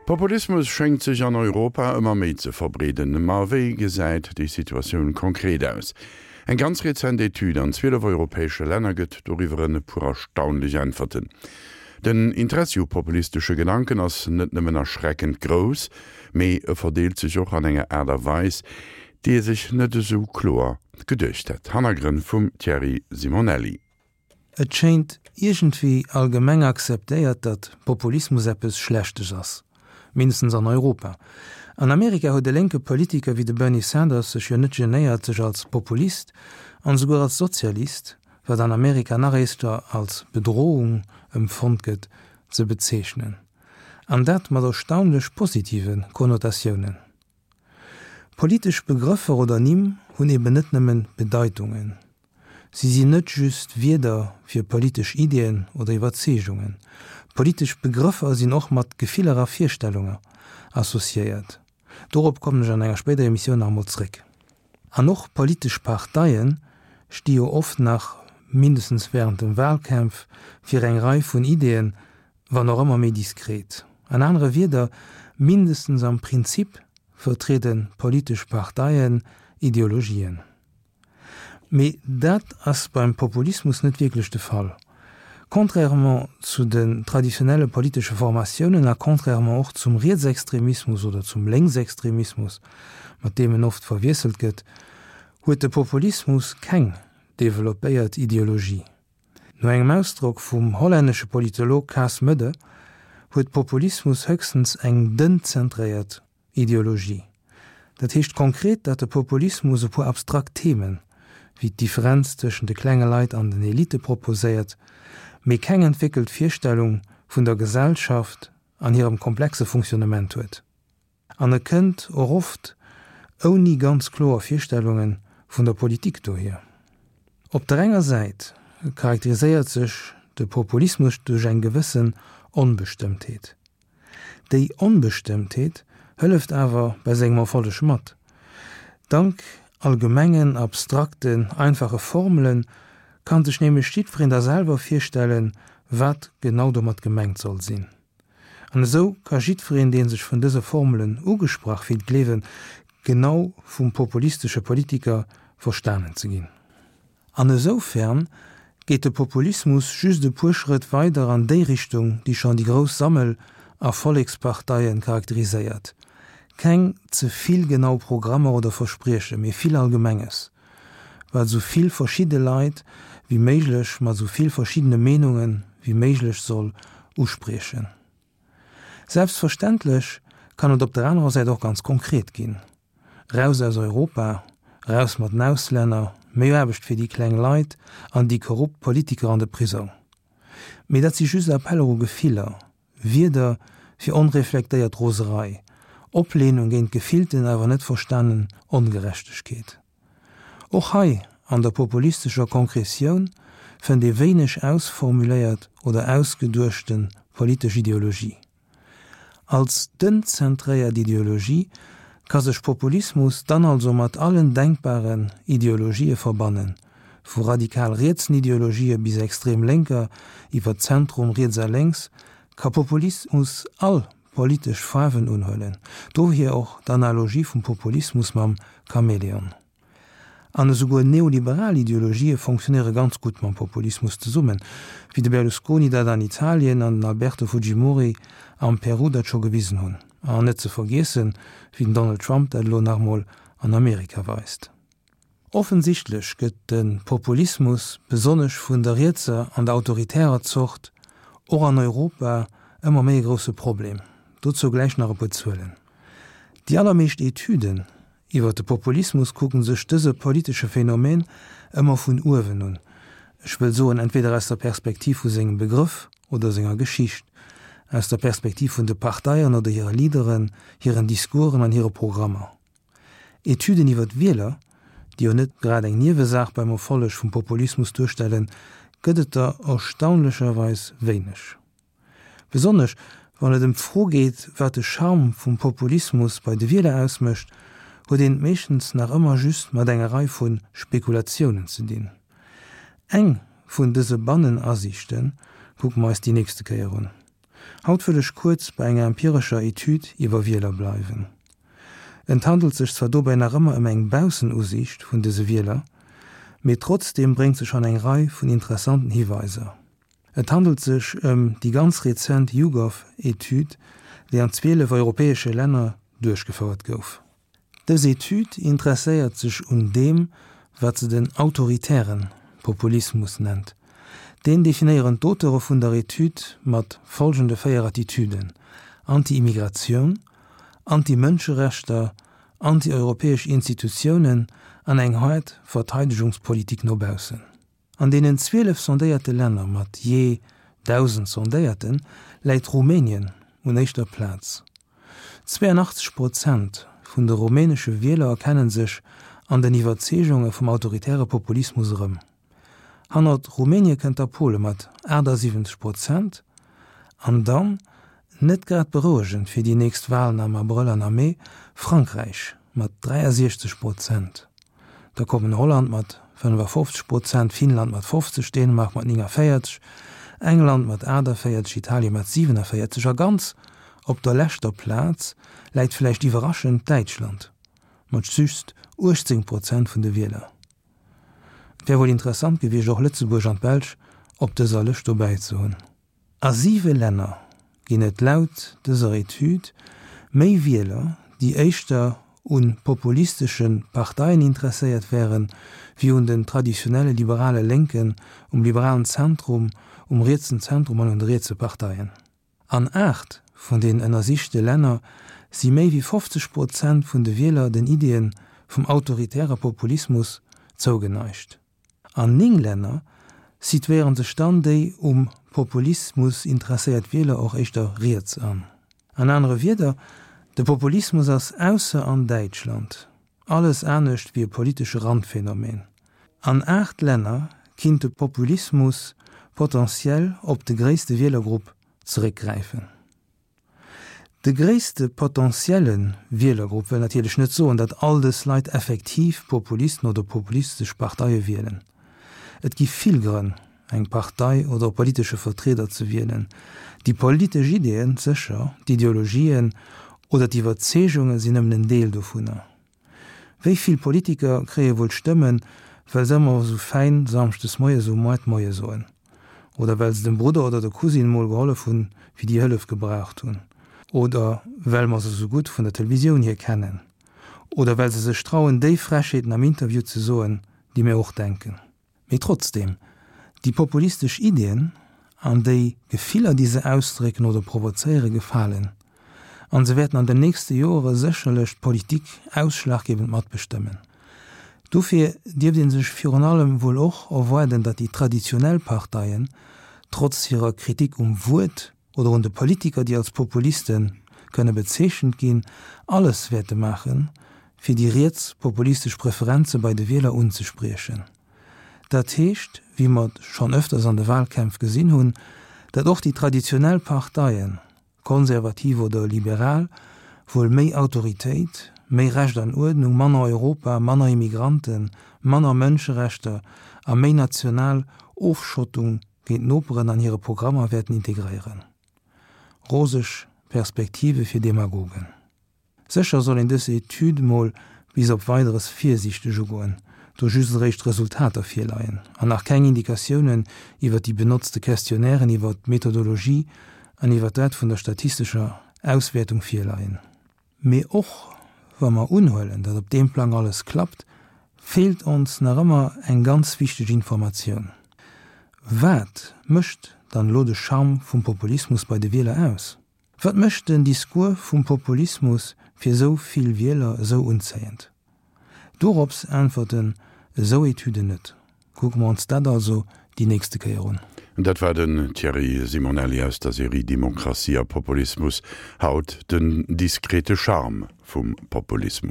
Populismus schéngt sech an Europa ëmmer méi ze verbreeden. Ma wéi gesäit déi Situatioun konkret aus? Eng ganz rezent Etüd an 12 europäesche Länner gëtt doriwwer e puer erstaunlech Äntwerten. Den Interessi u populistesche Gedanken ass net nëmmen erschreckend grouss, mee e verdeelt sech och an enger Aart a Weis, déi ee sech net esou kloer geduecht hätt. Hannergrënn vum Thierry Simonelli. Et schéint iergendwéi allgemeng akzeptéiert, datt Populismus eppes Schlechtes ass, mindestens an Europa. An Amerika huet e lénke Politiker wéi de Bernie Sanders sech jo net genéiert, sech als Populist an esouguer als Sozialist, wat an Amerika nach éischter als Bedrohung empfonnt gëtt, ze bezeechnen. An dat mat erstaunlech positive Konnotatiounen. Politesch Begrëffer oder Nimm hunn eben net nëmmen Bedeitungen. Si sinn net just Wierder fir politesch Iddien oder Iwwerzeegungen. Politesch Begrëffer sinn och mat Gefiller a Virstellunge associéiert. Dorop kommen ech an enger spéider Emissioun nach emol zréck. An och politesch Parteie sti jo oft nach, mindestens wärend de Walkämpf, fir eng Rei vun Iddien, wann och ëmmer méi diskret. An anere Wierder, mindestens am Prinzip vertriede politesch Parteien Ideologien. Mee dat ass beim Populismus net wierklech de Fall. Contrairement zu den traditionelle politesche Formatiounen a contrairement och zum Rietsextremismus oder zum Lénksextremismus, mat deem en oft verwiesselt gëtt, huet de Populismus keng developpéiert Ideologie. No engem Ausdrock vum hollännesche Politolog Cas Mudde huet Populismus höchstens eng dënn zentréiert Ideologie. Dat heescht konkret, datt de Populismus e puer abstrakt Themen, wéi d'Differenz tëschent de klenge Leit an den Elite proposéiert, mee keng entwéckelt Virstellung vun der Gesellschaft an hirem komplexe Fonctionnement huet. An e kënnt och oft ouni ganz kloer Virstellunge vun der Politik dohier. Op der enger Säit charakteriséiert sech de Populismus duerch eng gewëssen Onbestëmmtheet. Déi Onbestëmmtheet hëlleft awer bei sengem Erfolleg mat. Dank allgemengen, abstrakten, einfache Formele kann sech nämlech jiddwereen da selwer virstellen, wat genau domat gemengt soll sinn. An esou ka jiddwereen, dee sech vun dëse Formelen ugesprach fillt, gleewen, genau vum populistesche Politiker verstanen ze ginn. An esoufern geet de Populismus just e puer Schrëtt weider an déi Richtung, déi schonn déi grouss Sammel a Volleksparteie charakteriséiert, keng ze vill genau Programmer oder Versprieche, mee vill Allgemenges, wat esou vill verschidde Leit wéi méiglech mat esou vill verschiddene Meenunge wéi méiglech soll uspriechen. Selbstverständlech kann et op der anerer Säit och ganz konkret ginn. Raus aus Europa, raus mat den Auslänner, méi Aarbecht fir déi kleng Leit an déi korrupt Politiker an de Prisong. Mee dat si just Appeller u Gefiller, Wierder fir onreflektéiert Roserei, Opleenung géint gefillten awer net verstanen Ongerechtegkeet. Och hei an der populistescher Konkretioun fënnt ee wéineg ausformuléiert oder ausgeduechte politesch Ideologie. Als dënn-zentréiert Ideologie ka sech Populismus dann also mat allen denkbaren Ideologië verbannen, vu radikal rietsen Ideologië bis extrem lénker, iwwer Zentrum, riets a lénks, ka Populismus all politesch Faarwen unhuelen, dohier och d'Analogie vum Populismus mam Chamäleon. An esouguer neoliberal Ideologië fonctionnéiere ganz gutt mam Populismus zesummen, wéi de Berlusconi dat an Italien an den Alberto Fujimori am Peru dat scho gewisen hunn. An net ze vergiessen, wéi den Donald Trump dat elo nach emol an Amerika weist. Offensichtlech gëtt de Populismus, besonnesch vun der rietser an der autoritärer Zort, och an Europa ëmmer méi e grousse Problem. Dozou gläich nach e puer Zuelen. Déi allermeescht Etüden Iwwer de Populismus kucken sech dëse politesche Phänomen ëmmer vun uewen un, ech wëll soen entweder aus der Perspektiv vu sengem Begrëff oder senger Geschicht, aus der Perspektiv vun de Parteien oder hire Leaderen, hiren Discoursen an hire Programmer. Etüden iwwer d'Wieler, déi jo net grad eng Niewesaach beim Erfolleg vum Populismus duerstellen, gëtt et der erstaunlecherweis wéineg. Besonnesch wann et ëm d'Fro geet, wat de Charme vum Populismus bei de Wieler ausmécht, huet een et meeschtens nach ëmmer just mat enger Rei vu Spekulatiounen ze dinn. Eng vun dëse Bannenasiichte kucke mer eis déi nächste Kéier un. Haut wëll ech kuerz bei enger empirescher Etüd iwwer Wieler bleiwen. Et handelt sech zwar dobäi nach ëmmer ëm eng Baussenusiicht vun dëse Wieler, mee trotzdeem bréngt se schonn eng Rei vun interessanten Hiweiser. Et handelt sech ëm déi ganz rezent YouGov-Etüd, déi an 12 europäesche Länner duerchgefouert gouf. Dës Etüd interesséiert sech un deem, wat se den autoritäre Populismus nennt. Deen definéieren d'Auteure vun der Etüd mat folgende 4 Attitüden, Anti-Immigratioun, Anti-Mënscherechter, anti-europäesch Institutiounen an eng haart Verteidegungspolitik no baussen. An deenen 12 sondéierte Länner mat jee 1.000 Sondéierten läit Rumänien un éischter Plaz. 82 Prozent vun de rumänesche Wieler erkennen sech an den Iwwerzeegunge vum autoritäre Populismus erëm. Hannert Rumänie kënnt da Pole mat 78 Prozent an dann, net grad berouegend fir déi nächst Walen am Abrëll an am Mee, Frankräich mat 63 Prozent. Da kommen Holland mat 55 Prozent, Finnland mat 50, Dänemark mat 49, England mat 48, Italien mat 47 a ganz op der leschter Plaz läit vläicht iwwerraschend Däitschland mat just 18 Prozent vun de Wieler. Et wär wuel interessant gewiescht och Lëtzebuerg an d'Belsch op dëser Lëscht dobäi ze hunn. A siwe Länner ginn et laut dëser Etüd méi Wieler, déi éischter u populistesche Parteien interesséiert wären, wéi un den traditionelle liberale Lénken, um liberalen Zentrum, um rietsen Zentrum an un de rietse Parteien. An 8 vun den ënnersichte Länner si méi wéi 50 Prozent vun de Wieler den Iddien vum autoritäre Populismus zougeneigt. An 9 Länner situéiere sech dann déi um Populismus interesséiert Wieler och éischter riets an. An anere Wierder, de Populismus ass ausser an Däitschland alles anescht wéi e politesche Randphänomen. An 8 Länner kinnt de Populismus potentiell op de gréisste Wielergrupp zeréckgräifen. De gréisste potentielle Wielergrupp wëll natierlech net soen, datt all dës Leit effektiv Populisten oder populistesch Parteie wielen. Et gi vill Grënn, eng Partei oder e politesche Vertrieder ze wielen. Déi politesch Ideeën sécher, d'Ideologien oder d'Iwwerzeegunge sinn nëmmen en Deel dovunner. Wéi vill Politiker kréie wuel Stëmmen, well se ëmmer esou fäin samschdes moies um Moart Moie soen? Oder well se dem Brudder oder der Cousine mol gehollef hunn, wéi déi Hëllef gebraucht hunn? Oder well mer se esou gutt vun der Televisioun hier kennen? Oder well se sech trauen, déi Frechheeten am Interview ze soen, déi mir och denken? Mee trotzdem, déi populistesch Iddien an déi Gefiller, déi se ausdrécken oder provozéieren, gefalen. An se wäerten an den nächste Joere sécherlech d'Politik ausschlaggebend matbestëmmen. Dofir dierft ee sech virun allem wuel och erwaarden, datt déi traditionell Parteien, trotz hirer Kritik um Wuert oder un de Politiker, déi als Populiste kënne bezeechent ginn, alles wäerte maachen, fir déi rietspopulistesch Preferenze bei de Wieler unzespriechen. Dat heescht, wéi mer et schonn ëfters an de Wahlkämpf gesinn hunn, datt och déi traditionell Parteien, konservativ oder liberal, wuel méi Autoritéit, méi Recht an Uerdnung, manner Europa, manner Immigranten, manner Mënscherechter a méi national Ofschottung géint d'Noperen an hire Programmer wäerten integréieren. Roseg Perspektive fir Demagogen. Sécher soll een dës Etüd mol bis op Weideres virsiichteg ugoen, do just eréischt d'Resultater virleien an nach keng Indikatiounen iwwer déi benotzte Questionnairen, iwwer d'Methodologie an iwwer dat vun der statistescher Auswäertung virleien. Mee och wa mer unhuelen, datt op deem Plang alles klappt, feelt ons nach ëmmer eng ganz wichteg Informatioun, Wat mécht dann elo de Charme vum Populismus bei de Wieler aus? Wat mécht den Discours vum Populismus fir esou vill Wieler esou unzéiend? Dorops äntwerten esou Etüden net. Kucke mer ons dat also déi nächste Kéier un. Dat war den Thierry Simonelli aus der Serie Demokratie a Populismus, haut den diskrete Charme vum Populismus.